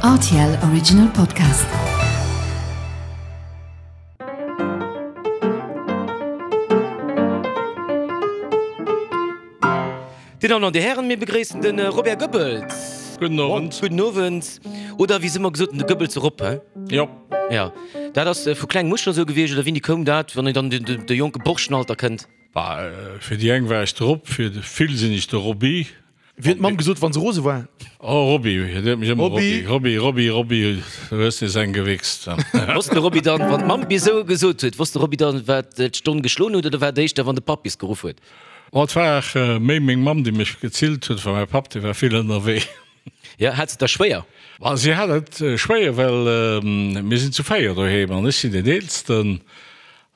Rtl Original Podcast. Dir Dammen an Dir Hären, mir begréissen de Robert Goebbels. Gudden Owend. Gudden Owend. Oder wéi se ëmmer gesot hunn, de Goebbels erop, he? Jo. Jo. Dat ass vu klengem u scho sou gewiescht, oder wéini koum dat, wann een dann an de jonke Borschenalter kënnt? Bah, fir déi eng war ech de Rob, fir vill sinn ech de Roby. Wéi huet d'Mamm gesot, wann se rose war? Oh, Roby, déi huet mech ëmmer Roby, Roby, Roby, Roby, du hues nees eng gewichst. Wosst de Roby dann, wann d'Mamm bis esou gesot huet, wosst de Roby dann, wat d'Stonn geschloen huet, oder war et éischter, wann de Papp bis geruff huet? Oh, et war méi meng Mamm, déi mech gezillt huet, well mäi Papp, dee war vill ënnerwee. Jo, hat se et da schwéier? Ma si hat et schwéier, well mir sinn zu 4 doheem an ech sinn deen Eelsten.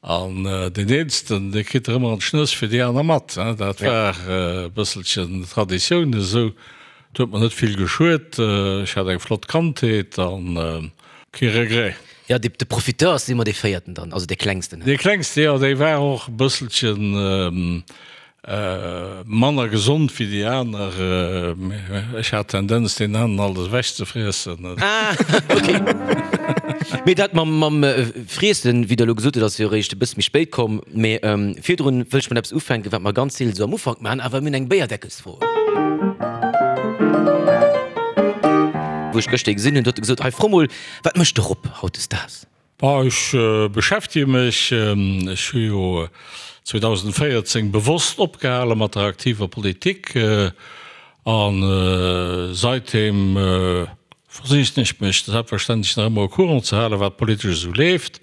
An deen Eelsten, dee kritt der ëmmer an d'Schnëss fir déi aner mat. Dat war e bësselchen Traditioun esou. Et huet mer net vill geschuet. Ech hat eng flott Kandheet a kee Regret. Jo, de Profiteur ass ëmmer dee Véierten dann, also dee Klengsten. Dee Klengste, jo, dee war och e bësselchen Manner gesond wéi déi aner. Ech hat d'Tendenz deenen aneren alles ewech ze friessen. Ah, ok. Mee dat mam mam Friessen, wéi Der elo gesot hutt, ass jo eréischt e bësse méi spéit komm. Mee virdrun wëll ech mat eppes ufänken, wat mer ganz seelen esou am Ufank maachen, awer mir hunn eng Béierdeckelsfro. Wou ech gëschter ee gesinn hunn, huet e gesot, Hei fro mol, wat mécht de Rob hautdesdaags? Bon, ech beschäftege mech, ech hu jo 2014 bewosst opgehale mat der aktiver Politik a seitdeem versichen ech mech selbstverständlech nach ëmmer au courant ze halen, wat politesch esou leeft.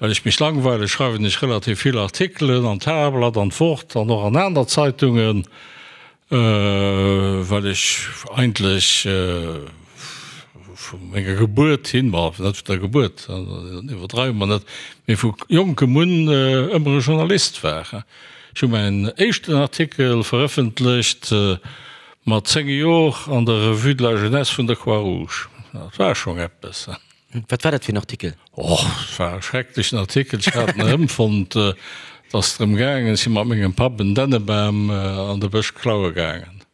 Well ech mech langweile schreiwen ech relativ vill Artikelen an d'Tageblatt, an d'Wort an och an aner Zeitungen. Well ech eigentlech vu menger Gebuert hin, bon, net vun der Gebuert, iwwerdreiwe mer net, mee vu jonkem un ëmmer e Journalist war. Ech hu mäin éischten Artikel verëffentlecht mat 10 Jor an der Revue de la Jeunesse vun der Croix-Rouge. Dat war schonn eppes. Wat war dat fir en Artikel? Och, et war e schrecklechen Artikel. Ech hat en erëmfonnt. Et ass drëm gaangen, ech si mat mengem Papp en Dännebam an de Bësch klaue gaangen.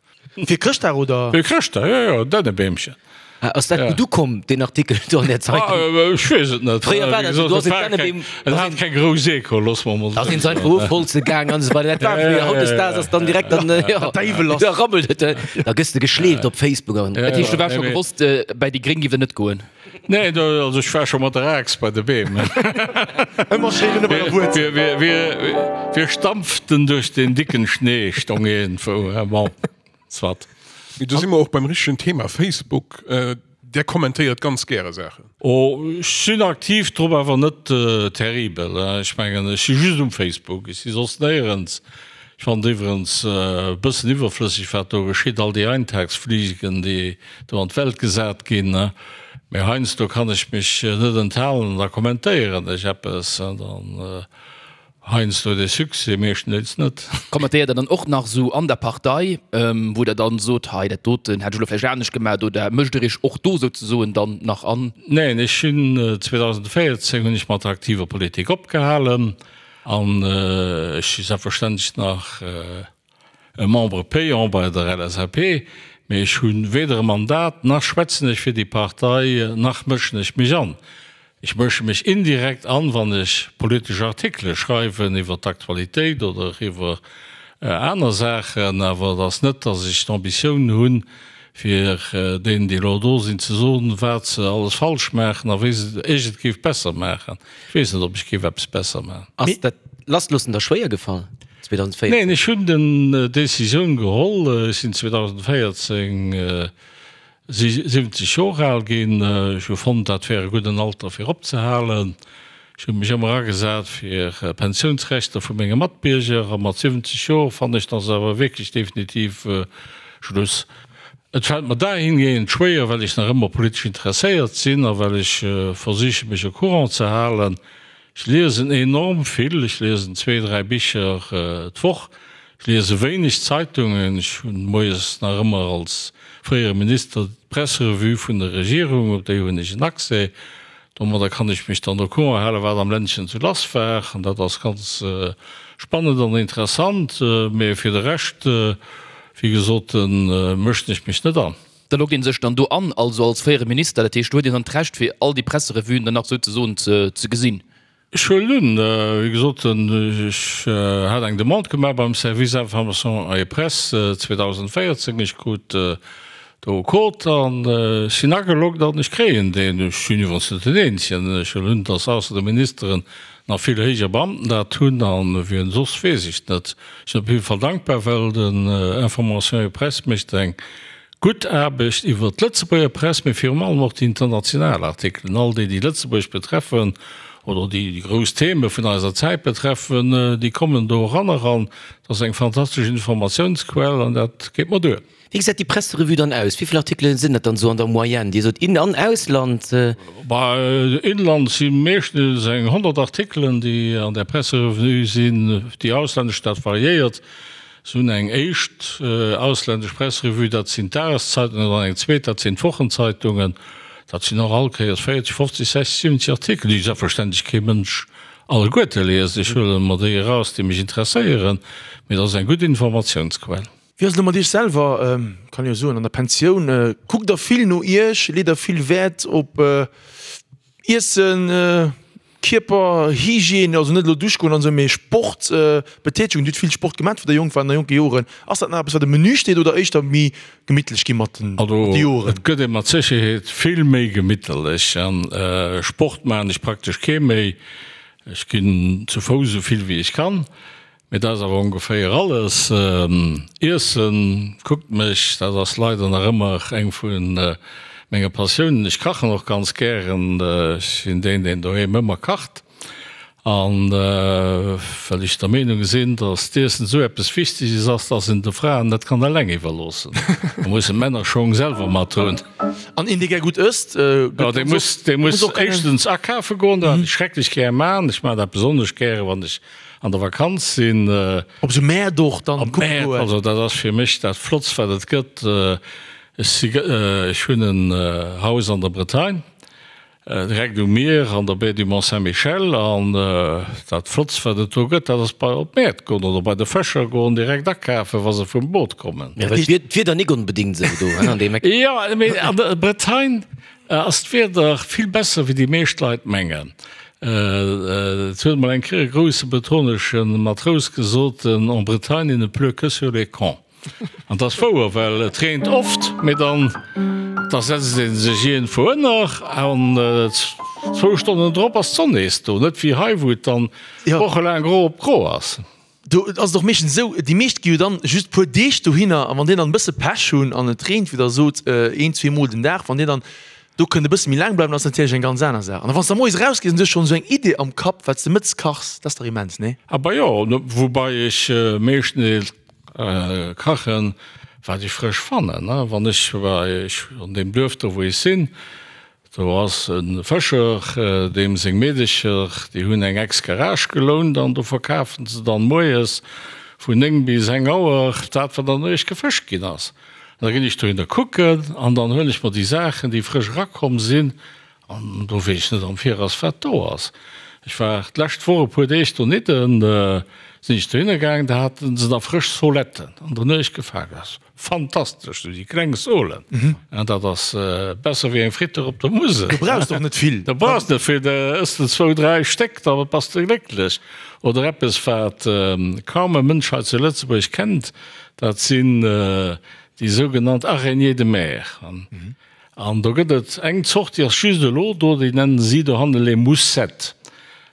Fir Chrëschtdag, oder? Fir Chrëschtdag, jo, jo, en Dännebeemchen. Ah, ass dat gutt ukomm, deen Artikel do an der Zeitung? Ech weess et net. Fréier war dat esou, du ass en Dännebeem. En hat keng grouss Echo, loosse mer emol Da sinn se einfach ofholze gaang an esou weider. Dat war fréier. Hautdesdaags ass dann direkt dann, jo, Däiwel ass. da rabbelt et, da gëss de geschleeft op Facebook an. Dat heescht, du waars scho gewosst, bäi déi Gréng giff der net goen? Nee, do, also ech war scho mat der Aax bei de Beem. Ëmmer schéin ënne bei der Wuerzel. Wir, wir, wir stampften durch den dicken Schnee, stong iergendwou. Bon, soit. Mee do si mer och beim richtegen Thema, Facebook. Där kommentéiert ganz gäre Saachen. Oh, ech sinn aktiv drop, awer net terribel. Ech mengen, ech si just um Facebook, ech si soss néierens. Ech fannen et iwwerens e bëssen iwwerflësseg, wat do geschitt, all déi Eintagsfliegen, déi do an d'Welt gesat ginn. Mee heiansdo kann ech mech net enthalen an da kommentéieren ech eppes. An dann heiansdo huet ee Succès, meeschtendeels net. Kommentéiert Der dann och nach esou an der Partei, wou Der dann sot, hei dat doten hätt ech elo vläicht anescht gemaach, oder mëscht Der Iech och do souzesoen dann nach an? Neen, ech hunn 2014 hunn ech mat der aktiver Politik opgehalen. An ech si selbstverständlech nach e Membre payant bei der LSAP, mee ech hu weder e Mandat, nach schwätzen ech fir déi Partei, nach mëschen ech mech an. Ech mësche mech indirekt an, wann ech politesch Artikele schreiwen iwwer d'Aktualitéit oder iwwer aner Saachen, awer et ass net, datt ech d'Ambitioun hunn, fir deenen, déi elo do sinn, ze soen, wat se alles falsch maachen a wéi ech et géif besser maachen. Ech weess net, ob ech géif eppes besser maachen. Ass dat Lassloossen da schwéier gefall 2014? Neen, ech hunn den Decisioun geholl. Ech sinn 2014 70 Joer al ginn. Ech hu fonnt, dat wär e gudden Alter fir opzehalen. Ech hu mech ëmmer agesat fir Pensiounsrechter vu menge Matbierger a mat 70 Joer fannen ech, dann ass awer wierklech definitiv Schluss. Et fält mer dahingehend schwéier, well ech nach ëmmer politesch interesséiert sinn a well ech versiche mech au courant ze halen. Ech liesen enorm vill, ech liesen zwee, dräi Bicher d'Woch. Ech liese wéineg Zeitungen. Ech hunn moies nach ëmmer als fréiere Minister d'Presserevue vun der Regierung, op déi hunn ech en Accès. Domadder kann ech mech dann au courant halen, wat am Ländchen sou lass war. An dat ass ganz spannend an interessant. Mee fir de Rescht, wéi gesot, mëschen ech mech net an. Da loggt ee sech dann do an, also als fréiere Minister, dat heescht do huet een dann d'Recht fir all déi Presserevuen dann nach souzesoen ze gesinn. Ech huelen un, wéi gesot, ech hat eng Demande gemaach beim Service Information et Presse 2014, ech krut do e Code an ech sinn ageloggt an ech kréien deen. Ech sinn iwwerens net den Eenzegen, ech huelen un, datt ausser de Ministeren nach vill héijer Beamten dat hunn an wien soss weess ech net. Ech sinn op jidde Fall dankbar, well den Information et Presse mécht eng Gutt Aarbecht iwwert d'Lëtzebuerger Press, mee virum allem och déi international Artikelen, all déi, déi Lëtzebuerg betreffen oder déi déi grouss Theme vun eiser Zäit betreffen, déi kommen do eran eran. Dat ass eng fantastesch Informatiounsquell an dat geet mer duer. Wéi gesäit déi Presserevue dann aus? Wéi vill Artikele sinn dat dann esou an der Moyenne? Dir sot In an Ausland. Bah, Inland si meeschtens eng 100 Artikelen, déi an där Presserevue sinn. Déi auslännesch, dat variéiert. Se hunn eng éischt ausländesch Presserevue, dat sinn d'Dageszeitungen, an dann eng zweet, dat sinn d'Wochenzeitungen. Dat sinn och all Kéiers 40, 50, 60, 70 Artikel, déi selbstverständlech kee Mënsch alleguerte liest. Ech huele mer déi eraus, déi mech interesséieren, mee dat ass eng gutt Informatiounsquell. Wéi ass et elo mat Iech selwer, kann jo soen, an der Pensioun? Kuckt Der vill no Iech? Leet Der vill Wäert op Iessen, Kierper, Hygiène, also net elo Dusch goen an esou, mee Sport, Betätegung, Dir hutt vill Sport gemat wou der jonk waart, an der jonke Joren. Ass dat nach eppes wat um Menü steet oder éischter méi gemittlech gi mat den Also Joren? et gëtt ee mat Sécherheet vill méi gemitterlech an Sport maachen ech praktesch kee méi. Ech ginn zu Fouss esou vill wéi ech kann. Mee dat ass awer ongeféier alles. Iessen, kuckt mech, dat ass leider nach ëmmer eng vu menge Passiounen. Ech kachen och ganz gären. Ech sinn deen, deen doheem ëmmer kacht. An well ech der Meenung sinn, datt d'Iessen esou eppes Wichteges ass, datt een de Fraen net kann eleng iwwerloossen. Da mussen d'Männer Schong selwer mat hunn. An een, dee gär gutt ësst, gëtt ganz oft, dee muss éischtens akafe goen, dat ech schrecklech gär man. Ech man dat besonnesch gäre wann ech an der Vakanz sinn. Op esou Mäert och dann kucke goen. Also dat ass fir mech dat Flottst wat et gëtt. Ech si, ech hunn en Haus an der Bretagne, direkt um Mier an der Baie du Mont Saint-Michel an dat Flottst wat et do gëtt, dat ass bei op d'Mäert goen oder bei de Fëscher goen, direkt akafen wa se vum Boot kommen. Jo, well d'Wieder nik onbedingt esou do an deem Eck. Jo, mee an der Bretagne Ass d'Wieder vill besser wéi déi meescht Leit mengen. Et huet emol eng Kéier e grousse bretonesche Matrous gesot, En Bretagne il ne pleut que sur les cons. An dat ass wouer, well et reent oft, mee dann da setzt ee sech iergendwou ënner an zwou Stonnen drop ass d'Sonn nees do. Net wéi hei, wou et dann wochelaang gro op gro ass. Do ass et och meeschtens esou, déi meescht gi jo dann just puer Deeg dohinner a wann déi dann e bësse Pech hunn an et reent, wéi der sot, een, zweemol den Dag, wann dir dann do kënnt e bësse méi laang bleiwen, ass natierlech eng ganz aner Saach. An da wann s de da moies erausgees an du hues schonn esou eng Idee am Kapp, wat s de mëttes kachs, dat ass dach immens, nee? Aber jo, woubai ech meeschtens kachen, wat ech frësch fannen. Wann ech bei, ech an deem Duerf do wou ech sinn, Do ass e Fëscher, deem seng Meedecher, déi hunn eng Ex-Garage gelount an do verkafen se dann moies vun 9 bis eng Auer dat, wat an der Nuecht gefëscht ginn ass. An da ginn ech dohinner kucken an dann huelen ech mer déi Saachen, déi frësch erakomm sinn an do weess ech net am Viraus, wat do ass. Ech war d'lescht Woch e puer Deeg donidden, sinn ech dohinner gaangen, da haten se da frësch Soletten an der Nuecht gefaangen. Fantastesch, sou déi kleng Solen, dat ass besser wéi eng Fritter op der Musel. Du brauchs och net vill. Du brauchs net vill, da ëss de zwou, dräi Stéck, da bass de glécklech. Oder eppes, wat kaum e Mënsch hei zu Lëtzebuerg kennt, dat sinn déi sougenannt Araignées de mer. An do gëtt et eng Zort, déi ass just elo do, déi nennen si dohanne les moussettes.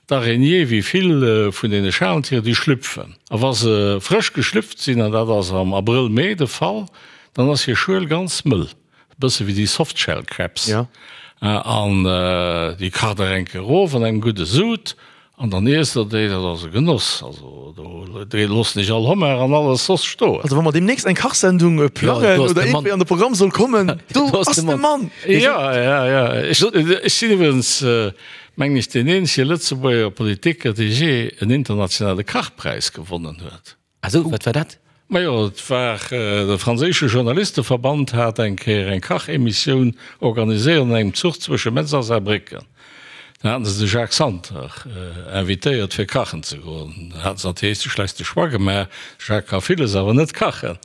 D'Araignée, wéi vill vun deene Schalentieren, déi schlüpfen. A wa se frësch geschlüpft sinn, an dat ass am Abrëll, Mee de Fall, dann ass hir Schuel ganz mëll, e bësse wéi déi Softshell Crabs. An déi kacht der eng Kéier erof an engem gudde Sud An dann iesst der déi, dat ass e Genoss. Also do loossen ech all Homard an alles soss stoen. Also wa mer deemnächst eng Kachsendung plangen oder iergendwéi an de Programm soll kommen, do ass de Mann! Jo, jo, jo. Ech sinn iwwregens, mengen ech, deen eenzege Lëtzebuerger Politiker, dee jee en internationale Kachpräis gewonnen huet. Ah sou, wat war dat? Majo, et war de franséische Journalisteverband hat eng Kéier eng Kachemissioun organiséiert an engem Zuch zwësche Metz a Saarbrécken. Da haten se de Jacques Santer invitéiert fir kachen ze goen. Da haten se natierlech de schlechte Choix gemaach, de Jacques ka villes, awer net kachen.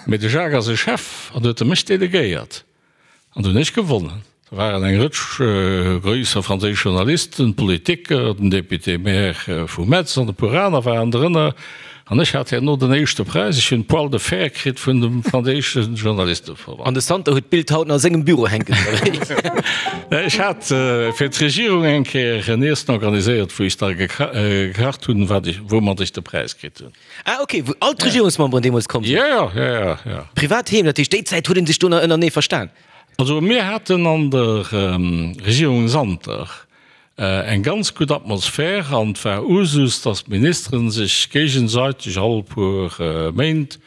Mee de Jacques ass e Chef an huet e mech delegéiert. An do hunn ech gewonnen. Do waren eng Rëtsch gréisser franséisch Journalisten, Politiker, den Député-maire vu Metz an e puer aner waren drënner. An ech hat herno den éischte Präis. Ech hunn d'Poil de fer kritt vun dem franséische Journalisteverband. An de Santer huet d'Bild haut nach a sengem Büro hänken, oder wéi? Ech hat fir d'Regierung eng Kéier en Iessen organiséiert, wou ech da gekacht hunn, wat ech, woumat ech de Präis kritt hunn. Ah ok, wou all d'Regierungsmemberen deemools komm sinn? Jo, jo, jo, jo, jo. Privat heem, dat heescht déi Zäit huet ee sech do nach ënnerenee verstan? Also mir haten an der Regierung Santer eng ganz gutt Atmosphär an et war Usus, datt d'Ministere sech géigesäiteg all puer Méint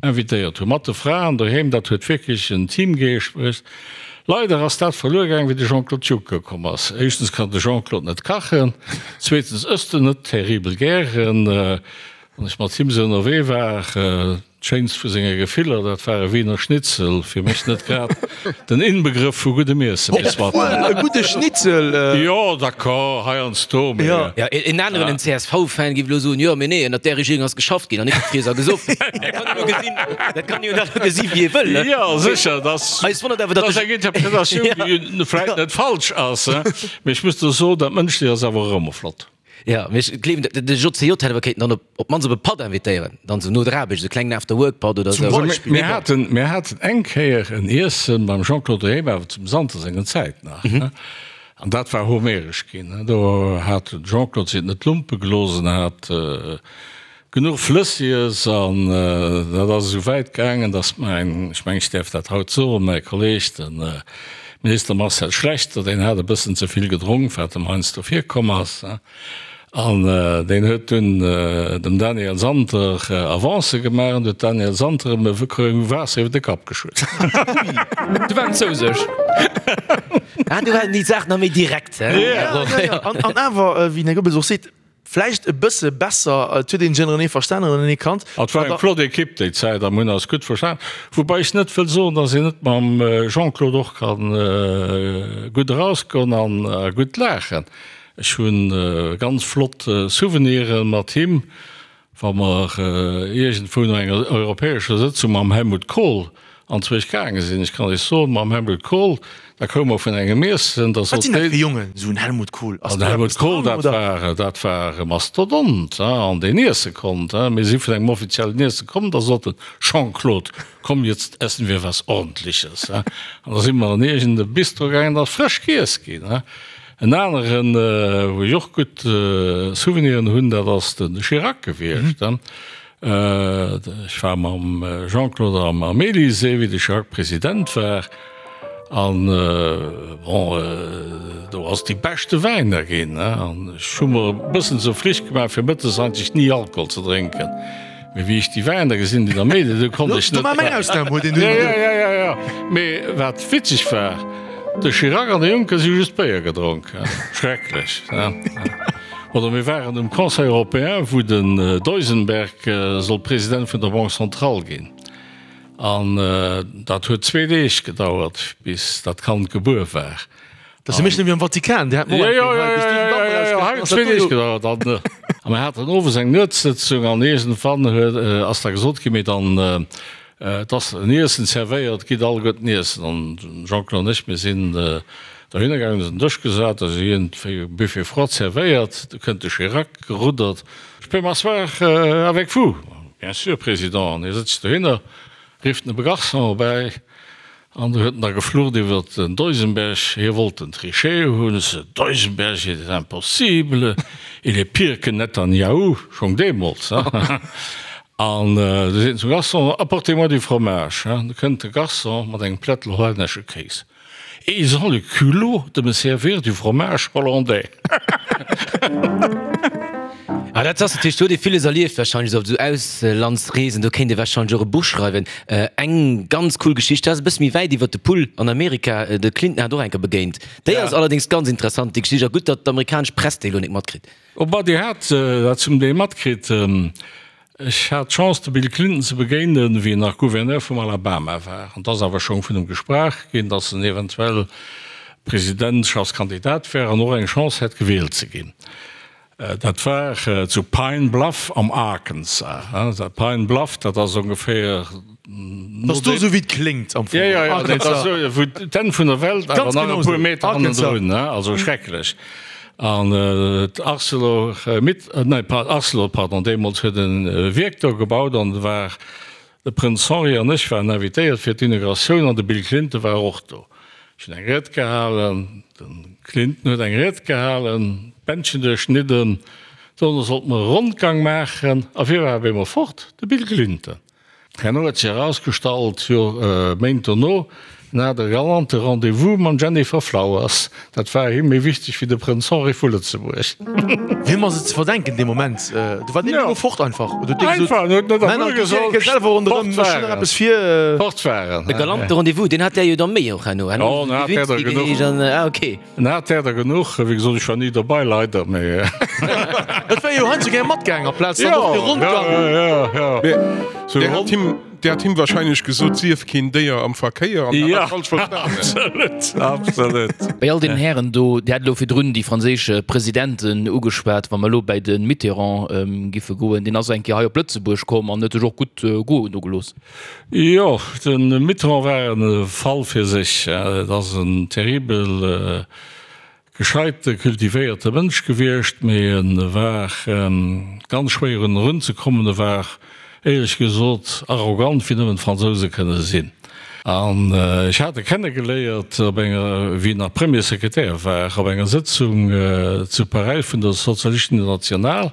invitéiert hunn, mat de Fraen doheem. Dat huet wierklech en Teamgeescht bruecht. Leider ass dat verluer gaang, wéi de Jean-Claude Juncker komm ass. Éischtens kann de Jean-Claude net kachen, zweetens ësst en net terribel gären. Wann ech mat him esou ënnerwee war, D'schéinst vu senge Gefiller, dat war e Wiener Schnitzel. Fir mech net grad den Inbegrëff vu guddem Iessen, mee soit. Obwuel, e gudde Schnitzel. Jo, d'accord, heiansdo, mee. Jo, en aneren, en CSV-Fan, géif elo soen, jo, mee nee, ënnert där Regierung ass geschafft ginn an net gefriess a gesoff. Dat kann een elo gesinn, dat kann een jo elo gesi wéi ee wëll, ne? Jo, sécher, dat Eis wonnert awer, datt ass eng Interpretatioun, déi vläicht net falsch ass, mee ech muss do soen, dat Mënschlecht ass awer och ëmmer flott. Jo, mee ech gleewen, de JCJ hätt awer kéinten dann op op d'mannst op e Patt invitéieren, dann esou no der Aarbecht, esou klengen After-Work-Patt oder esou. Zum Beispill. Mir haten, mir haten eng Kéier en Iessen beim Jean-Claude Rehme, awer zum Santer sengen Zäit nach, ne? An dat war homeresch ginn, ne? Do hat de Jean-Claude sech et net lumpe gelooss en hat genuch Flëssies an dat ass esou wäit gaangen, datt mäin, ech mengen, ech däerf dat haut soen, mäi Kolleeg, de Minister Marcel Schlechter, deen hat e bëssen ze vill gedronk, wat em heiansdo virkomm ass, an deen huet dunn dem Daniel Santer Avancë gemaach an huet Daniel Santer em e Krou Waasser iwwer de Kapp geschütt. Du war en zouseg. Ah, du war déi Saach nach méi direkt, hä? An awer, wéi den Här Goebbels och seet, Vläicht e bësse besser, et huet een ënnerenee verstanen, ënnerenee kannt. Et war eng flott Ekipp déi Zäit a mir hunn eis gutt verstan. Woubäi ech net wëll soen, datt een net mam Jean-Claude och ka gutt erausgoen an gutt laachen. Ech hu ganz flott Souveniren mat him, wa mer iergendwou no enger europäescher Sëtzung mam Helmut Kohl anzwousch gaange sinn. Ech kann Iech soen, mam Helmut Kohl, da koume mer vun engem Iessen, da Wat sot sinn dat deen. fir Jongen, esou en Helmut Kohl? Ass Den do Helmut eppes Kohl, dran, dat oder? war, dat war e Mastodont, hein, an deen iesse konnt, hein. Mir si vun engem offiziellen Iesse komm, da sot en, Jean-Claude, komm, jetzt essen wir was Ordentliches, hein. An da si mer an iergend e Bistro gaangen, da ass frësch giess ginn, hein. En aneren, wou ech och gutt Souveniren hunn, dat ass de Chirac gewiescht, hein. Ech war mam Jean-Claude am Elysée, wéi de Chirac President war, an bon, do ass déi beschte Wäiner ginn, an ech hu mer e bëssen zur Flicht gemaach, fir mëttes eigentlech ni Alkohol ze drénken, mee wéi ech déi Wäiner gesinn hunn am Elysée, do konnt ech net. Do war meng Ausnam, huet een dunn. Jo, jo, jo, jo, mee wat witzeg war, de Chirac an de Juncker si hu just Béier gedronk, schrecklech. Oder mir waren um Conseil européen, wou den Duisenberg sollt President vun der Banque centrale ginn. An dat huet zwee Deeg gedauert, bis dat Kand gebuer war. Dat ass jo méi schlëmm wéi am Vatikan, déi haten och eng Kéier hei, bis déi den Damp erausgekritt hunn, ass dat Zwee do Deeg jo. gedauert. An a mir haten owes eng Nuetssëtzung an iergendwann huet, ass da gesot ginn, mee dann, Et ass en Iessen zerwéiert, gitt alleguerten iessen. An den Jean-Claude an ech, mir sinn dohinner gaangen, hunn eis un den Dësch gesat, da si iergendwéi e Buffet froid zerwéiert. Du kënnt de Chirac geruddert, Je peux m'asseoir avec vous? Bien sûr, Président. An hie sëtzt dohinner, rifft en e Garçon erbäi An do huet en da geflucht iwwer den Duisenberg, hie wollt den Trichet hunn. Ce Duisenberg, il est impossible, il est pire que Netanyahou, schonn deemools, hein. An du seet en zum Garçon, Apportez-moi du fromage, hein. Du kënnt de Garçon mat engem Plättel hollännesche Kéis. Et ils ont le culot de me servir du fromage hollandais. Ah, dat ass natierlech, do huet ee villes erlieft warscheinlech, esou op esou Auslandsreesen, do kéint ee warscheinlech och e Buch schreiwen. Eng ganz cool Geschicht, dat ass e bësse méi wäit iwwert de Pull an Amerika, de Clinton hat och eng Kéier begéint. Déi ass allerdéngs ganz interessant, déi Geschicht, a gutt, datt d'amerikanesch Press déi elo net matkritt. Oh bah, déi hat dat zum Deel matkritt. Ech hat d'Chance, de Bill Clinton ze begéinen, wéi en nach Gouverneur vum Alabama war. An et ass awer schonn vun em gesprach ginn, datt en eventuell Presidentschaftskandidat wär an och eng Chance hätt, gewielt ze ginn. Dat war zu Pine Bluff am Arkansas. Dat Pine Bluff, dat ass ongeféier. Dat ass do esou wéi et kléngt am Fong. Jo, jo, jo, dat ass esou wou d'Enn vun der Welt, awer nach e puer Meter hannendrun, also schrecklech. An d'Arcelor, nee, Arcelor, pardon, deemools huet e Wierk do gebaut an war De Prënz Henri an ech waren invitéiert fir d'Inauguratioun an de Bill Clinton war och do. Ech hunn eng Ried gehalen, de Clinton huet eng Ried gehalen, d'Bändchen duerchschnidden, dono sollte mer e Rondgang maachen a wie war op eemol fort? De Bill Clinton. Herno huet sech erausgestallt, jo Méint dono, En hat e galante Rendez-vous mam Jennifer Flowers. Dat war him méi wichteg wéi de Prënz Henri vu Lëtzebuerg. Wiem ass et ze verdenken dee Moment? Do war deen elo fort einfach. Oder huet dee gesot, Einfach, en huet net a Männer, Wuer gitt gesot, gitt selwer ronderëm, fort ech hunn war nach en. eppes vir. Fort war en. E galante Rendez-vous, deen hat där jo da méi och herno. Jo, en hat där der genuch. Ah, okay. En hat där der genuch. Wéi gesot, ech war ni dobei, leider, mee. Et wär jo heiansdo gär matgaang amplaz dann och de Rondgang. Jo, jo, jo, jo. Där hat him. Där hat him wahrscheinlech gesot, sief keen Déier am Verkéier an hat dat falsch verstanen. Absolut, absolut. Bei all deenen Hären do, Dir hat elo virdrun déi franséisch Presidenten ugeschwat, wa mer elo bäi de Mitterrand giffe goen, deen ass eng Kéier hei op Lëtzebuerg komm an huet sech och gutt goen do gelooss. Jo, de Mitterrand war e Fall fir sech. Et ass en terribel Gescheite, kultivéierte Mënsch gewiescht, mee e war ganz schwéier un en erunzekommen. E war, éierlech gesot, arrogant wéi nëmmen d'Fransouse kënne sinn. An ech hat e kennegeléiert op enger, wéi en nach Premier Secrétaire war, op enger Sëtzung zu Paräis vun der Sozialistischen Internationale.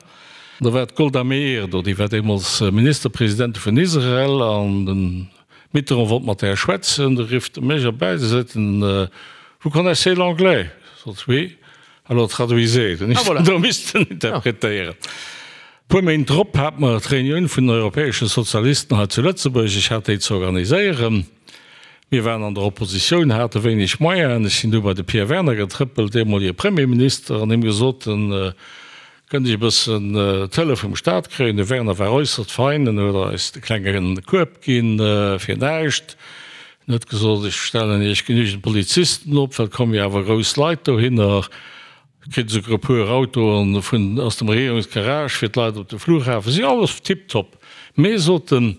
Do war d'Golda Meir do, déi war deemools Ministerpresidentin vun Israel, an den Mitterrand wollt mat där schwätzen, du rifft e mech erbäi, du seet en, Vous connaissez l'anglais? Ech sot, Oui. Alors traduisez. Dunn ech do missten interpretéieren. E puer Méint drop hate mer d'Reunioun vun den europäesche Sozialisten hei zu Lëtzebuerg. Ech hat déi ze organiséieren. Mir waren an der Oppositioun, hate wéineg Moyenen. Ech sinn du bei de Pierre Werner getrëppelt, deemolige Premierminister, an him gesot, Kënnt ech e bëssen d'Hëllef vum Staat kréien? De Werner war äusserst fein, en huet eis de klenge Kueb ginn fir näischt. En huet gesot, ech stellen iech genügend Polizisten op, well et komme jo awer grouss Leit dohinner. Kritt esouguer e puer Autoen vun aus dem Regierungsgarage fir d'Leit op de Flughafen. Si alles tiptop. Mee, sot en,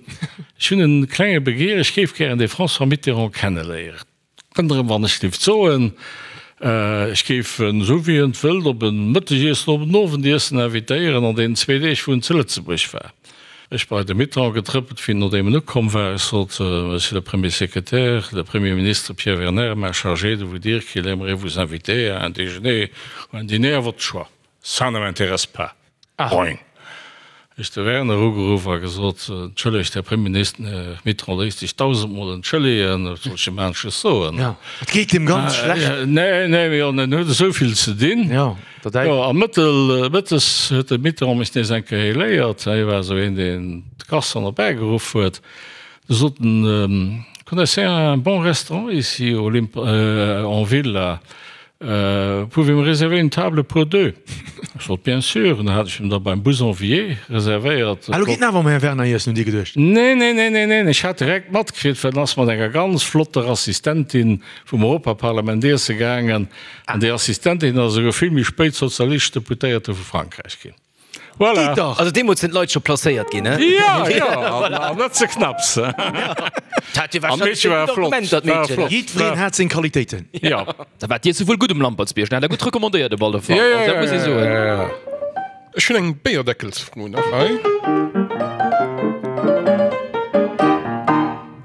ech hunn en klenge Begeer, ech géif gären dee François Mitterrand kenneléieren. Ënnerem wann ech dierft soen, ech géif en, esou wéi en et wëllt, op en Mëttegiessen, op en Owendiessen invitéieren an deenen zwee Deeg wou en zu Lëtzebuerg war. Ech bei de Mitterrand getrëppelt wéi nodeem en ukomm war. Ech sot, Monsieur le Premier Secrétaire, le Premier Ministre Pierre Werner m'a chargé de vous dire qu'il aimerait vous inviter à un déjeuner ou un dîner à votre choix. Ça ne m'intéresse pas. Boing! Ech de Werner ugeruff a gesot, Entschëllegt, Här Premierminister, Här Mitterrand léisst sech dausendmol entschëllegen, wat soll ech him anesches soen? Jo, et geet him ganz schlecht. Nee, nee, mee en huet esou vill ze dinn. Jo, dat Jo, a mëttel, mëttes huet de Mitterrand mech nees eng Kéier héléiert. Hie war esou een, deen d'Garçon erbäigeruff huet. Du sot en, Connaissez un bon restaurant ici au Limp, en ville là? Pouvez me réserver une table pour deux? Ech sot, Bien sûr. An da hat ech him da beim Bouzonvier reservéiert. Ah, lo geet en awer mam Här Werner iessen, hutt Dir geduecht? Nee, nee, nee, nee, neen, ech hat direkt matkritt, well en ass mat enger ganz flotter Assistentin vum Europaparlament iesse gaangen. An déi Assistentin ass esouguer vill méi spéit sozialistesch Deputéierte vu Frankräich ginn. Voilà. Geet dach! Also deemools sinn d'Leit scho placéiert ginn, he? Ja, ja, an, an net ze knapps. Dat hat jo An d'Meedche wahrscheinlech war gutt flott, Argument, dat war Meedchen. flott. Jiddwereen hat seng Qualitéiten. Ja. Da war d'Iesse wuel gutt um Lampertsbierg, den hat der gutt recommandéiert op alle Fall. Ja, ja, Also dat muss ee ja, soen. ja, ja. Ech hunn eng Béierdeckelsfro nach hei.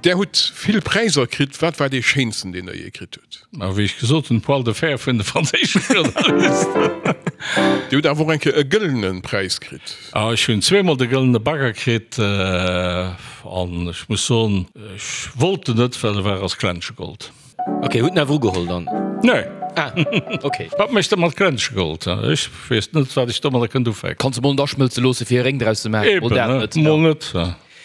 Där hutt vill Präisser kritt. Wat war dee schéinsten, deen Der jee kritt hutt? Ma wéi ech gesot hunn, d'Poil de fer vun de franséische Journalisten. Dir hutt awer och eng Kéier e gëllene Präis kritt. Ah, ech hunn zweemol de gëllene Bagger kritt an ech muss soen, ech wollt en net, well e war aus Glänschegold. Ok, hutt en awer ugeholl dann? Nee. Ah, ok. Wat mécht e mat Glänschegold? Ech weess net, wat ech domadder kënnt ufänken. Kanns e mol net aschmëlze loosse fir e Réng draus ze maachen. Mol Eben, dat ne? net. Mol net.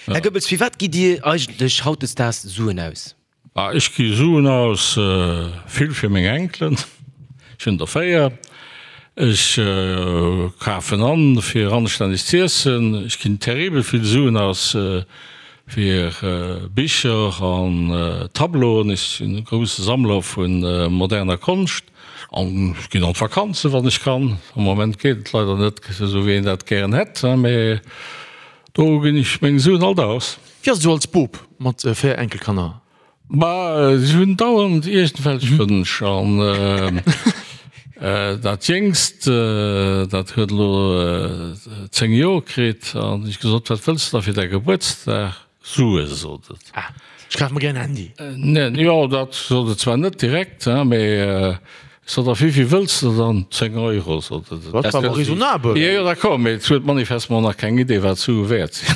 Här Goebbels, fir wat gitt Dir eigentlech hautdesdaags Suen aus? Ah, ech gi Suen aus, vill fir meng Enkelen, ech hunn der 4. Ech kafen an, fir anstänneg z'iessen. Ech ginn terribel vill Suen aus. Fir Bicher an Tableauen. Ech sinn e grousse Sammler vu moderner Konscht. An ech ginn an d'Vakanzen, wann ech kann. Am Moment geet et leider net esou, wéi een dat gären hätt, mee do ginn ech meng Suen alt aus. Wéi ass et esou als Bop mat 4 Enkelkanner? Ma si hunn dauernd iergendwelch Wënsch. An dat Jéngst, dat huet elo 10 Joer kritt. An ech gesot, Wat wëlls de da fir däi Gebuertsdag? Sue, sot et. Ah, ech kaf mer gär en Handy. Neen, jo, dat sot et zwar net direkt, mee ech sot, A wéivill wëlls de dann? 10 Euro, sot et. Dat ass awer raisonnabel. Jo, jo, d'accord, mee et huet manifestement nach keng Idee, wat Sue wäert sinn.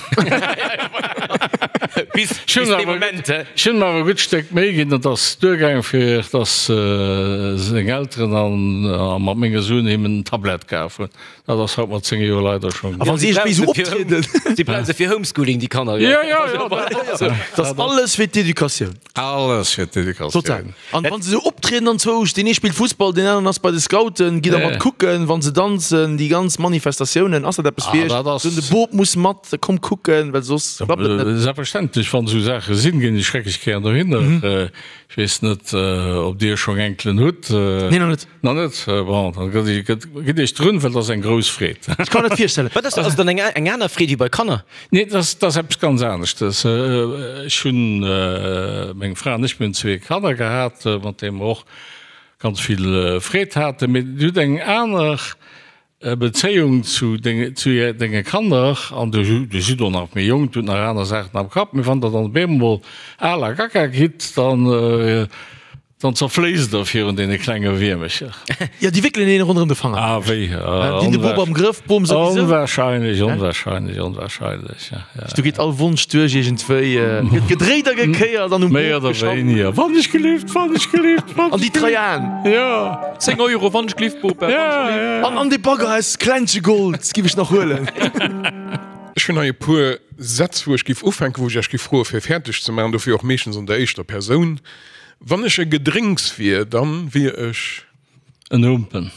Bis, bis dee Moment, he? Ech hunn em awer e gutt Stéck Méi ginn, et ass duergaangen, fir dass seng Elteren a mat menge Suen him en Tablett kaf hunn. Dat ass haut mat 10 Joer leider schonn. A wann si iergendwéi esou optrieden. Si brauche se fir Homeschooling, déi Kanner. Jo, jo, jo, dat ass alles fir d'Educatioun. Alles fir d'Educatioun. Total. An wann se esou optrieden an zwousch, deen ee spillt Fussball, deen aneren ass bei de Scouten, gitt der mat kucken, wann se danzen, déi ganz Manifestatiounen, ass dat eppes fir iech? Esou de Bop muss mat, komm kucken, well soss klappt et net. Selbstverständlech, wann esou Saache sinn, ginn ech schrecklech gären dohinner. Ech weess net, ob Dir schonn Enkelen hutt. Nee, nach net. Nach net? Bon, dann gitt Iech drun, well et ass eng grouss Freed. Ech kann mer dat virstellen. Wat ass dat? Ass et dann eng aner Freed wéi bei Kanner? Nee, dat ass eppes ganz aneschtes. Ech hunn, meng Fra an ech, mir hunn zwee Kanner gehat, mat deene mer och ganz vill Freed haten. Mee Dir hutt eng aner Bezéiung zu denge Kanner, an Dir sidd och nach méi jonk, Dir hutt nach aner Saachen am Kapp, mee wann Der dann op eemol al a gaga gitt, dann Dann zerfléisst der virun deene klenge Wiermecher. Jo, déi wéckelen een ronderëm de Fanger. Ah, wéi? Déi hunn de Bop am Grëff, d'Bom souwisou. Onwahrscheinlech, onwahrscheinlech, onwahrscheinlech, ja, ja. Do geet all Wonsch duerch iergendwéi, gëtt gedréit a gekéiert an um Méi Bop oder geschafft. wéiniger. Wann ech gelift, wann ech gelift, wann An déi ech gelift. Traian. Jo. 10 Euro, wann ech gelift, Bop, wann ech Ja, gelift. ja. An, an dee Bagger aus Klenschegold giff ech nach huelen. Ech hunn hei e puer Sätz, wou ech giff ufänken, wou ech Iech giff froe fir fäerdeg ze maachen, dofir och meeschtens an der éischter Persoun. Wann ech e Gedrénks wier, dann wier ech. En Humpen.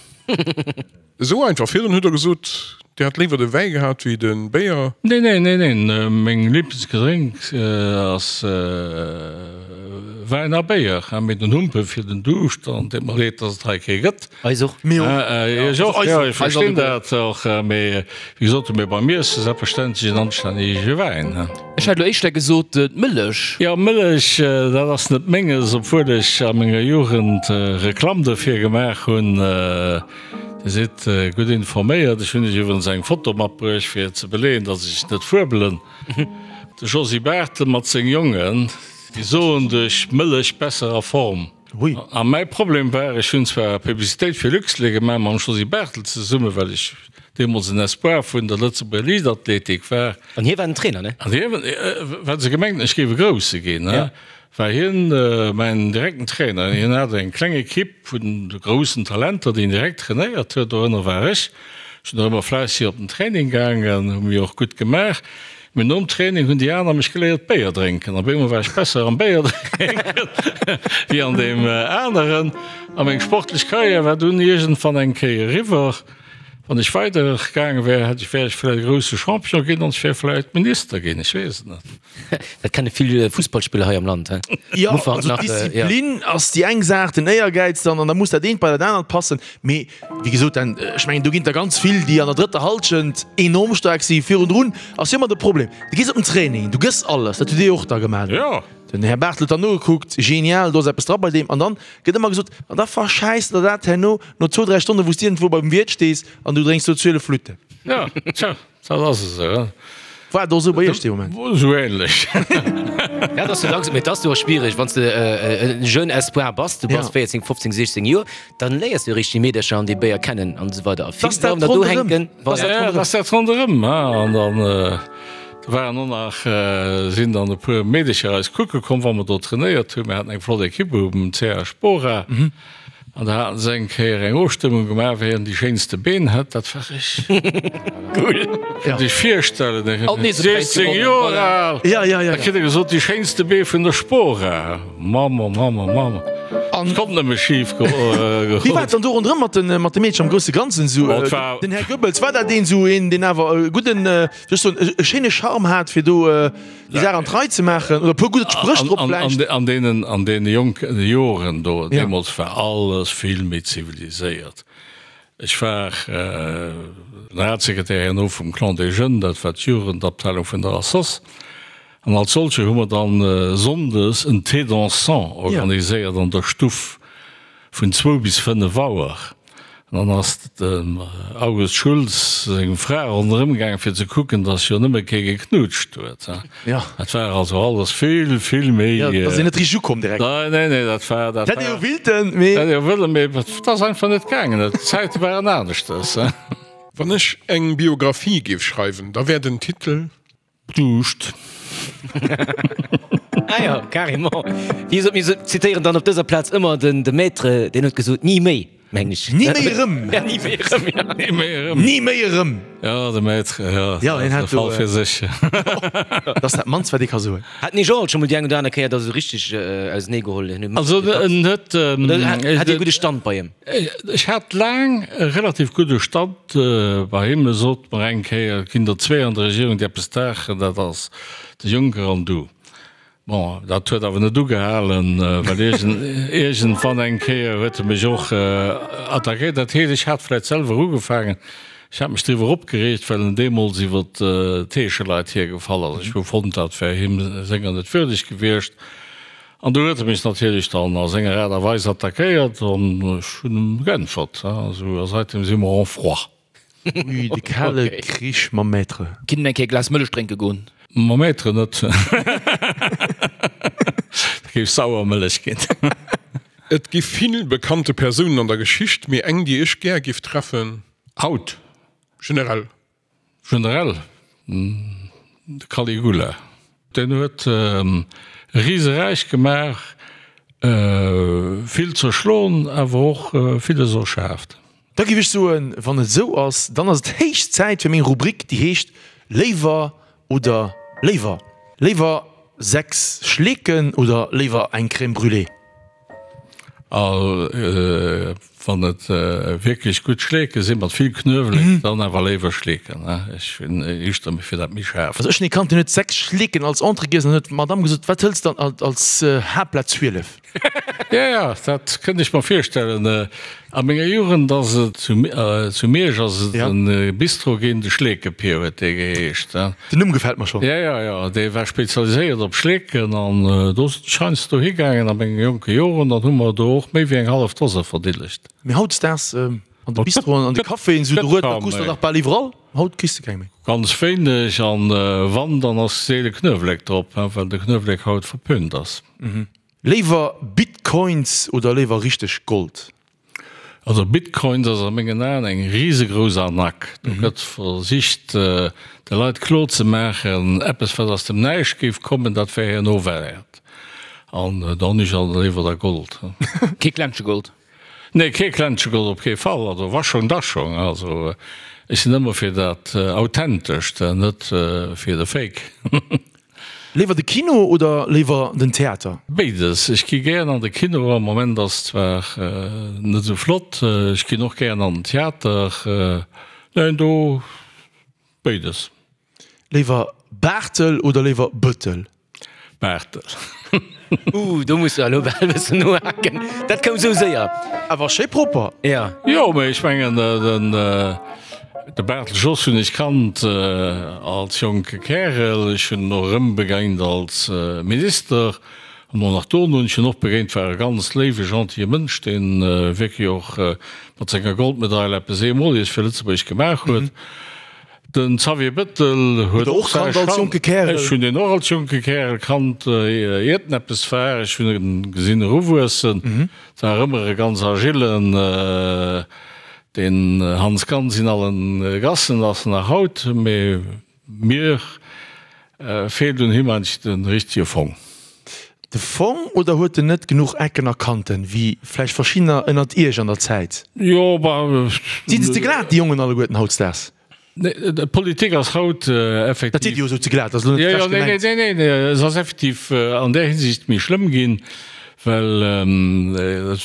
Esou einfach. Virdrun hutt der gesot, Dir hätt léiwer de Wäi gehat wéi de Béier. Neen, neen, neen, neen. Meng Liblingsgedrénks ass Wäin a Béier. Mee den Humpen fir den Duuscht, an deet mer leed, dass et hei kee gëtt. Eis och. Mir och. Iech och, jo, ech verstinn dat och. Mee wéi gesot, mee beim Iesse selbstverständlech en anstännege Wäin. Ech hätt elo éischter gesot d'Mëllech. Jo, Mëllech, dat ass net menges, obwuel ech a menger Jugend Reklamm dofir gemaach hunn. Dir sidd gutt informéiert. Ech hunn Iech iwwerens eng Foto matbruecht, fir ze beleeën, datt ech net fuebelen. De Josy Barthel mat seng Jongen, déi soen duerch Mëllech besser a Form. Hui. A mäi Problem war, ech hunn zwar Publicitéit fir Luxlait gemaach mam Josy Barthel zesummen, well ech deemools en Espoir vun der Lëtzebuerger Liichtathletik war. An hie war den Trainer, ne? An hien, well se gemengt hunn, ech géif e Grousse ginn, war hien mäin direkten Trainer. Hien hat eng kleng Ekipp vun groussen Talenter, déi en direkt trainéiert huet, dorënner war ech. Ech sinn och ëmmer fläisseg op den Training gaangen, hu mir och gutt gemaach. Mee nom Training hunn déi aner mech geléiert Béier drénken. Op eemol war ech besser am Béier drénken wéi an deem aneren. A meng sportlech Karriär war dunn iergendwann eng Kéier eriwwer. Wann ech weider gaange wär, hätt ech, wär ech vläicht e grousse Champion ginn an ech wär vläicht Minister ginn, ech weess et net. Dat kenne vill Fussballspiller hei am Land, he? Jo, also d'Disziplin ass déi eng Saach, den Éiergäiz dann, an da muss dat eent bei dat anert passen. Mee Wéi gesot, dann, ech mengen, do ginn der ganz vill, déi an der drëtter Hallschent enorm staark sinn. Virundrun ass jo ëmmer de Problem, du gees op den Training, du gëss alles, dat hutt Dir jo och da gemaach. Jo. Den Här Barthel huet dann nogekuckt, genial, do ass eppes dra bei deem. An dann gëtt ëmmer gesot, an da verschäiss der dat herno no zwou, dräi Stonnen, wou s de iergendwou beim Wiert stees an du drénks do 12 Flütten. Jo, tja. Dat ass esou. War et och esou bei Iech dee Moment? Esou ähnlech. Ja, dat ass jo langsam, mee et ass jo och schwiereg, wann s de e jeune espoir bass, du bass 14, 15, 16 Joer, dann léiers du eréischt déi Meedercher an déi Béier kennen an esou weider. A vill bleiwen der do hänken. Voilà. Ja, dat ass dat ronderëm. An dann do waren och nach, sinn dann e puer Meedercher eis kucke komm, wa mer do trainéiert hunn. Mir haten eng flott Ekipp um CH Spora. An da haten se eng Kéier eng Ofstëmmung gemaach, wien déi schéinste Been hätt. Dat war ech. Cool. Kënnt Iech virstellen, ech war 16 Joer al, da kritt e gesot, déi schéinste Bee vun der Spora. Mamm, oh Mamm, oh Mamm. Et konnt nëmme schif goen. Wéi war et dann do ronderëm mat de mat de Meedchen am grousse Ganzen esou? Den Här Goebbels, war dat een esou een, deen awer e gudden, wéi soll ech soen, e schéine Charme hat, fir do déi Saach an d'Rei ze maachen oder e puer gutt Spréch drop vläicht? An deenen, an deene jonke Joren do, deemools war alles vill méi ziviliséiert. Ech war Generalsekretär herno vum Clan des Jeunes, dat war d'Jugendabteilung vun der Assoss. An als solche hu mer dann sonndes en Thé dansant organiséiert an der Stuff vun zwou bis 5 Auer. An dann ass dem August Schulz seng Fra ronderëm gaangen, fir ze kucken, dass jo nëmme kee geknutscht huet. Dat war also alles vill, vill méi. Jo, da sinn net richteg ukomm direkt. Nee, nee, nee, dat war, dat war. Hätt ee jo willten, mee. Hätt ee jo wëllen, mee et ass einfach net gaangen. D'Zäite waren aneschters. Wann ech eng Biographie géif schreiwen, da wär den Titel. Duuscht. Ah jo, carrément. Wéi gesot, mir zitéieren dann op dëser Plaz ëmmer den de Maître, deen huet gesot, Ni méi, mengen ech. Ni méi erëm. Ja, ni méi erëm, ja. Ni méi erëm. Ni méi erëm. Ja, de Maître, ja, Ja, deen dat hat ass e do, Fall fir sech. Dat ass dat mannst, wat ee ka soen. Hat den Jean alt scho mol déi eng oder aner Kéier da sou richteg auseneegeholl? Also, en huet. Oder hat Dir e gudde Stand bei him? Ech hat laang e relativ gudde Stand bei him. E sot mer eng Kéier, et ginn der zwee an der Regierung, déi eppes daachen, dat ass de Juncker an du. Bon, dat huet awer net ugehalen, well iergendwann eng Kéier huet e mech och attackéiert. Dat heescht, ech hat vläicht selwer ugefaangen, ech hat mech driwwer opgereegt, well en deemools iwwer d'Heescheleit hiergefall ass. Ech hu fonnt, dat wär him senger net würdeg gewiescht. An do huet e mech natierlech dann a senger Aart a Weis attackéiert an ech hunn em geäntwert. Esou, a seitdem si mer en froid. Ui, de kale Krich mam Maître. Kinnt en eng Kéier e Glas Mëllech drénke goen? Mam Maître net. Dat géif sauer Mëllech ginn. Et gi vill bekannte Persounen an der Geschicht, mee eng déi ech gär giff treffen. Haut? Generell. Generell, de Caligula. Deen huet e Riseräich gemaach, vill zerschloen, awer och villes erschaaft. Da géif ech soen, wann et esou ass, dann ass et héich Zäit fir meng Rubrik, déi heescht Léiwer oder léiwer. Léiwer 6 Schleeken oder léiwer eng Crème brûlée? A wann et wierklech gutt Schleeke sinn, mat vill Knuewelek, dann awer léiwer Schleeken. Ech hunn éischter méi fir dat méi schaarft. Also ech hunn ee kannt, deen huet 6 Schleeken als Entrée giess an huet d'Madame gesot, wat hëls de dann als Haaptplat 12? Jo, jo, dat kënnt ech mer virstellen. A menger Jugend ass et zu Miersch ass et e Bistro ginn, de Schleekepier huet dee geheescht. Den Numm gefält mer schonn. Jo, jo, jo, dee war spezialiséiert op Schleeken an do sinn ech heiansdo higaangen a menge jonke Joren. Dann hu mer do och méi wéi eng hallef Dose verdillegt. Mee hautdesdaags an de Bistroen, an de Caféen, esou de Rued, da krus de dach bal iwwerall. Haut kriss de keng méi. Ganz wéineg, an wann, dann ass seele Knuewelek drop, well de Knuewelek haut verpönt ass. Léiwer Bitcoins oder léiwer richteg Gold? Also Bitcoins ass a mengen Aen eng risegrouss Arnaque. Do gëtt versicht de Leit kloer ze maachen, eppes wat aus dem Näischt géif kommen, dat wär herno wäert. An da hunn ech also léiwer da Gold. Kee Klentsche Gold? Nee, kee Klentsche Gold op kee Fall. Also wa schonn, da schonn. Also ech sinn ëmmer fir dat Authentescht, net fir de Fake. Léiwer de Kino oder léiwer den Theater? Béides. Ech gi gären an de Kino, am Moment ass zwar net esou flott. Ech ginn och gären an den Theater. Neen, do béides. Léiwer Baartel oder léiwer Bëttel? Baartel. Ooh, do muss de elo bal e bëssen nohaken. Dat koum esou séier. Awer schéi propper. Ja. Jo, mee ech mengen den de Barthel Jos hunn ech kannt als jonke Kärel, ech hunn en och erëm begéint als Minister an och nach dono hunn ech en och begéint, war e ganz léiwe gentille Mënsch, deen wierklech och mat senger Goldmedail eppes Eemoliges fir Lëtzebuerg gemaach huet. Den Xavier Bettel huet och säi Charme. Ech hunn deen och als jonke Kärel kannt, iert en eppes war. Ech hunn en gesinn eruwuessen. Et war ëmmer e ganz agillen, deen Hans Gans in allen Gassen ass en nach haut. Mee mir feelt un him eigentlech de richtege Fong. De Fong oder huet en net genuch Ecken a Kanten, wéi vläicht verschiddener ënnert Iech an der Zäit? Jo, bah. Sinn se ze glat, déi Jongen alleguerten hautdesdaags? Nee, d'Politik ass haut effektiv. Dat seet Dir jo esou ze glat, ass elo net frech gemengt. Nee, nee, nee, se ass effektiv an där Hinsicht méi schlëmm ginn, Well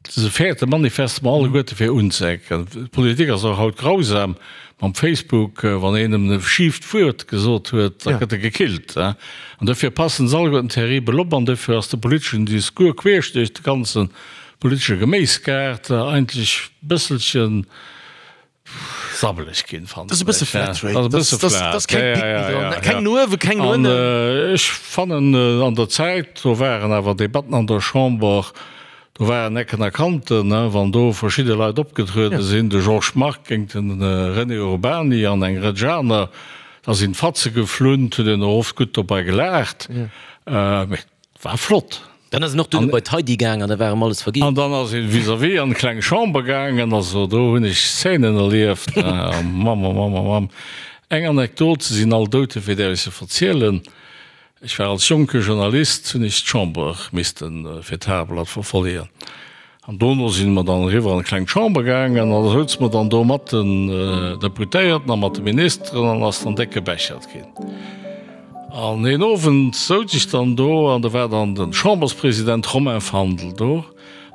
se fäerte manifestement alleguerte fir unzeecken. D'Politik ass och haut grausam mam Facebook, wann een em e schieft Wuert gesot huet, da gëtt e gekillt. An dofir passen se alleguerten terribel op an dofir ass de politeschen Discours queesch duerch de ganze politesche Geméisgaart eigentlech e bësselchen sabbeleg ginn, fannen ech. Dat ass e bësse flat rate. Dat ass e bësse flat. Dat ass keng Pick méi dran. Keng no uewen, keng no ënnen. An ech fannen, an der Zäit, do waren awer Debatten an der Chamber, do waren Ecken a Kanten, wann do verschidde Leit opgetruede sinn, de Georges Margue géint de René Urbany an eng Rëtsch aner, da sinn d'Fatze geflunn, et huet een och oft gutt dobei gelaacht. Mee War flott. Dann ass en och duerno bei d'Heidi gaang an da war em alles verginn. An dann ass een vis-à-vis an d'kleng Chamber gaangen. Also do hunn ech Szenen erlieft. Mamm, oh Mamm, oh Mamm. Eng Anekdot, se sinn all dout, dofir däerf ech se verzielen. Ech war als jonke Journalist, hunn ech d'Chamber missten fir d'Tageblatt verfollegen. An dono si mer dann eriwwer an d'kleng Chamber gaangen an da souze mer dann do mat den Deputéierten a mat de Ministeren an ass dann déck gebechert ginn. An een Owend souz ech dann do an do war dann de Chamberspresident Romain Fandel do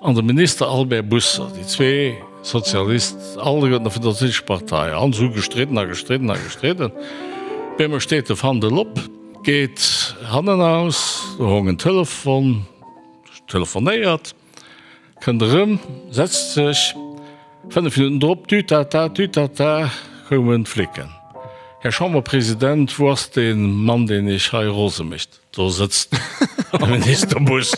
an de Minister Albert Busser, déi zwee Sozialist, alleguerten vun der Sozialistescher Partei, an se hu gestridden a gestridden a gestridden. Op eemol steet de Fandel op, geet hannenaus, do hong en Telefon, telefonéiert. Kënnt erëm, setzt sech. 5 Minutten drop, Tütata, tütata, koumen d'Flicken. Här Chamberpresident, wou ass dee Mann, deen Iech hei rose mécht? Do sëtzt de Minister Buss.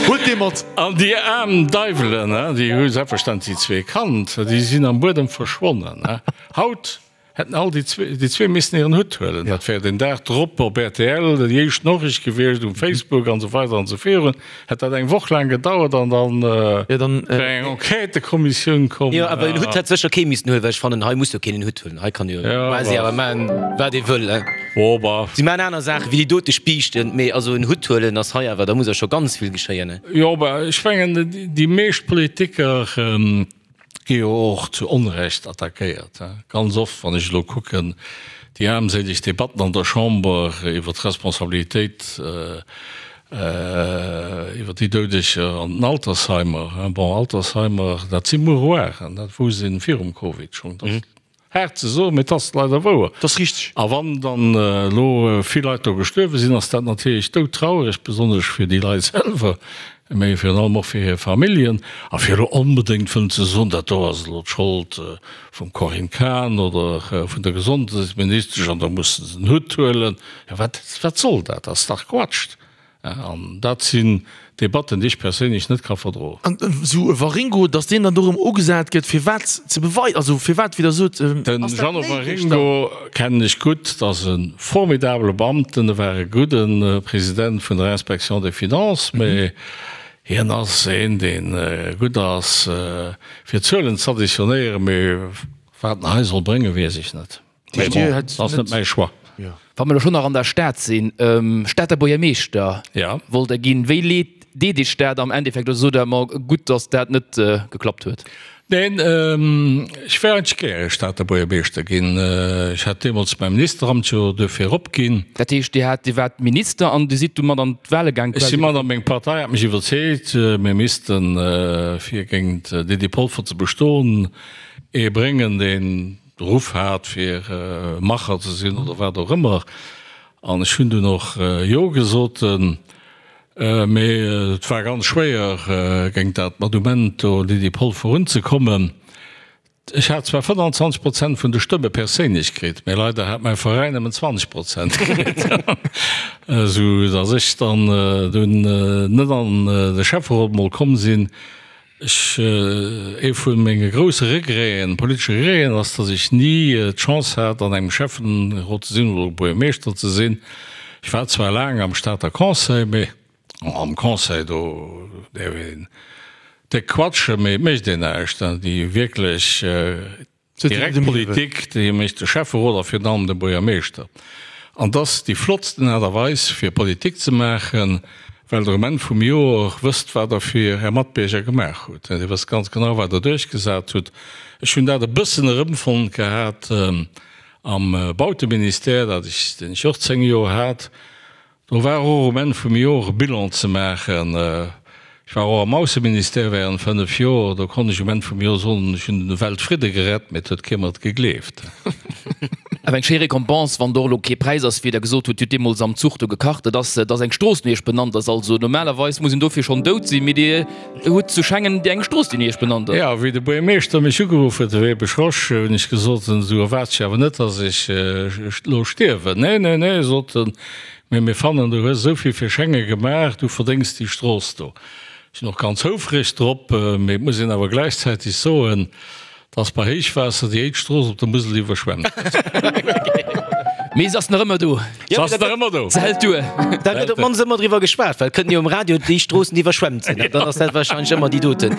Huelt dee mat! An déi aarm Deiwelen, déi hu selbstverständlech déi zwee kannt, déi sinn am Buedem verschwonnen. Haut Hätten all déi zwee missen hiren Hutt huelen. Dat wär den Dag drop op rtl déi éischt Noriicht gewiescht, um Facebook an esou weider an esou virun. Hätt dat eng Woch laang gedauert an dann wär eng Enquêtëkommissioun komm. Jo, awer en Hutt hätt sécher kee missen huelen, well ech fannen, hei muss jo keen en Hutt huelen. Hei kann jo quasi awer maachen, wat ee wëll. Si maachen aner Saachen wéi déi dote Spiichten, mee also en Hutt huelen ass hei awer, da muss awer scho ganz vill geschéien. Jo, awer ech mengen, déi meescht Politiker, Gi jo och zu Onrecht attackéiert. Ganz oft, wann ech elo kucken, déi aarmséileg Debatten an der Chamber iwwer d'Responsabilitéit iwwer déi Doudeger an den Altersheimer. Bon, Altersheimer, dat si Mouroiren, dat wousst ee virum Covid schonn. Haart ze soen, mee et ass leider wouer. Dat ass richteg. A wann dann elo vill Leit do gestuerwe sinn, ass dat natierlech doudtrauereg, besonnesch fir déi Leit selwer, mee virun allem och fir hir Familljen. A fir elo onbedéngt wëllen ze soen, dat do ass elo d'Schold vum Corinne Cahen oder vun der Gesondheetsministesch an da musse se den Hutt huelen, jo wat, wat soll dat? Dat ass dach Quatsch. An dat sinn Debatten, déi ech perséinlech net ka verdroen. An esou e Waringo, datt deen dann do erëm ugesat gëtt, fir wat ze beweisen, also firwat, wéi Der sot, Den ass dat Jeannot néideg dann? Waringo kennen ech gutt, dat ass e formidabele Beamten, e war e gudde President vun der Inspection des Finances, mä hien ass een, dee gutt ass fir Zuelen z'additionéieren, mä wat en hei soll bréngen, weess ech net. Mee bon, dat ass net mäi Choix. Wa mer elo schonn nach an der Stad sinn, Stater Buergermeeschter wollt Der ginn. Wéi leet deet Iech dat am Endeffekt oder sot Der, ma gutt, datt dat net geklappt huet? Neen, ech wär eigentlech gäre Stater Buergermeeschter ginn. Ech hat deemools mäi Ministeramt jo duerfir opginn. Dat heescht, Dir hat, Dir waart Minister an Dir sidd du mat an d'Wahle gaang quasi? Ech si mat an, meng Partei hat mech iwwerzeegt, mir missten, fir géint d'Lydie Polfer ze bestoen, ee bréngen, deen de Ruff hat fir Macher ze sinn oder wat och ëmmer. An ech hunn dunn och Jo gesot. Mee et war ganz schwéier géint dat Madumento Lydie Polfer unzekommen. Ech hat zwar 25 Prozent vun de Stëmme perséinlech kritt, mee leider hat mäi Veräin nëmmen 20 Prozent kritt, esou datt ech dann dunn net an de Schäfferot mol komm sinn. Ech, ee vu menge grousse Regreten, politesche Regreten ass, datt ech ni d'Chance hat an engem Schäffenrot ze sinn oder Buergermeeschter ze sinn. Ech war zwar laang am Stater Conseil, mee am Conseil do däerf een déck quatschen, mee et mécht een näischt. Déi wierklech Direkt Politik, déi mécht de Schäfferot a virun allem de Buergermeeschter. An et ass déi flottsten Aart a Weis fir Politik ze maachen, well Der um Enn vum Joer wësst, wat Der fir Är Matbierger gemaach hutt. Dir wësst ganz genau, wat Der duerchgesat hutt. Ech hunn dat e bëssen erëmfonnt gehat am Bauteministère, dat ech, deen ech och 10 Joer hat. Do war och um Enn vum Jor e Bilan ze maachen. Ech war och am Ausseministère während 5 Jor. Do konnt ech um Enn vum Jor soen, ech hunn de Weltfridde gerett, mee et huet kee mer et gegleeft. Awer eng schéi Récompense, wann do och elo kee Präis ass, wéi Der gesot hutt, Dir hutt deemools am Zuch do gekacht, et ass, dass eng Strooss no Iech benannt ass. Also normalerweis muss een dofir schonn dout sinn, mee Dir hutt zu Schengen eng Strooss, déi no Iech benannt ass. Jo, wéi de Buergermeeschter mech ugeruff huet, de Webesch Rosch, hunn ech gesot, du erwaarts jo awer net, dass ech elo stierwen. Nee, nee, nee, sot en, Mee mir fannen, du hues esou vill fir Schengen gemaach, du verdéngs déi Strooss do. Ech sinn och ganz houfreg drop, mee et muss een awer gläichzäiteg soen, dass bei Héichwaasser déi éischt Strooss op der Musel iwwerschwemmt gëtt. Mee se ass nach ëmmer do. Se ass nach ëmmer do. Se hält duer. Da gëtt op d'mannst ëmmer driwwer geschwat, well et kënnt jo um Radio déi Stroossen, déi iwwerschwemmt sinn. Dann ass dat wahrscheinlech ëmmer déi doten.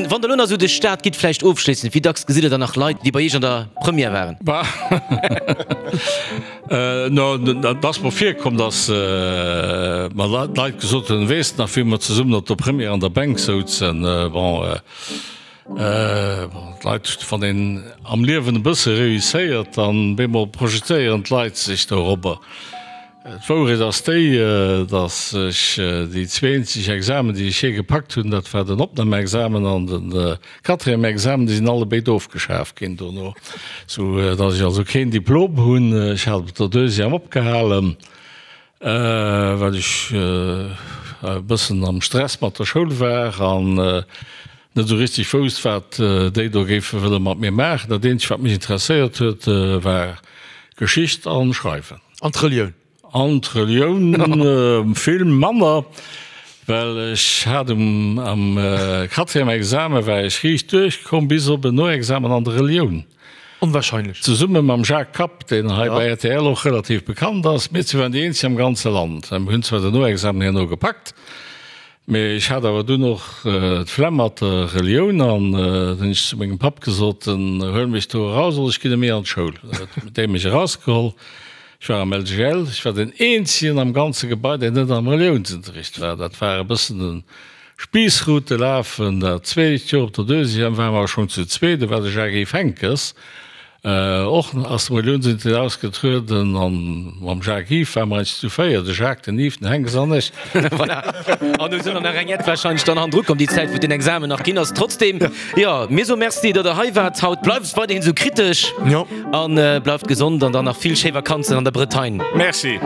Wann Der elo nach esou duerch d'Stad gitt, vläicht ofschléissend, wéi dacks gesitt Der dann nach Leit, déi bei Iech an der Première waren? No, et ass mer virkomm, datt mer Leit gesot hunn, Weess de nach, wéi mer zesummen op der Première an der Bänk souzen? Bon, d'Leit, wann een am Liewen e bësse réusséiert, dann bemol projetéieren d'Leit sech dorobber. D'Wourecht ass déi, datt ech déi zweenzeg Examen, déi ech jee gepackt hunn, dat war den Opnamexamen an de Quatrième Examen, déi sinn allebéid ofgeschaf ginn dono, sou datt ech also keen Diplom hunn. Ech hat op der Deuxième opgehalen, well ech e bëssen am Stress mat der Schoul war an net esou richteg wousst, wat déi do géife wëlle mat mir maachen. Dat eenzegt, wat mech interesséiert huet, war Geschicht an Schreiwen. An d'Relioun? An d'Relioun vill manner, well ech hat um am Quatrième Examen war ech riicht duerchkomm, bis op en Noexamen an der Relioun. Onwahrscheinlech. Zesumme mam Jacques Kapp, deen hei bei rtl och relativ bekannt ass. Mir zwee waren déi eenzeg am ganze Land. Mir hunn zwar den Noexamen herno gepackt, mee ech hat awer dunn och d'Flemm mat der Relioun an da hunn ech zu mengem Papp gesot, Huel mech do eraus oder ech ginn net méi an d'Schoul. Da huet dee mech erausgeholl. Ech war am LGL, ech war den eenzegen am ganze Gebai, deen net am Reliounsunterricht war. Dat war e bëssen de Spiissroute lafen. Dat zweet Joer op der Deuxième ware mer schonn zu zweet, do war de Jacques-Yves Henckes och aus dem Reliounsunterricht ausgetrueden an mam Jacques-Yves ware mer eins zu véier, de Jacques, den Yves, den Henckes an ech. Voilà. An do sinn der nach eng Jett wahrscheinlech dann hannendru komm, déi Zäit, wou den Examen nach ginn ass. Trotzdem, jo, mir soe Merci, datt Der hei waart haut. Bleift weiderhin esou kritesch. Jo. An bleift gesond an dann nach vill schéi Vakanzen an der Bretagne. Merci.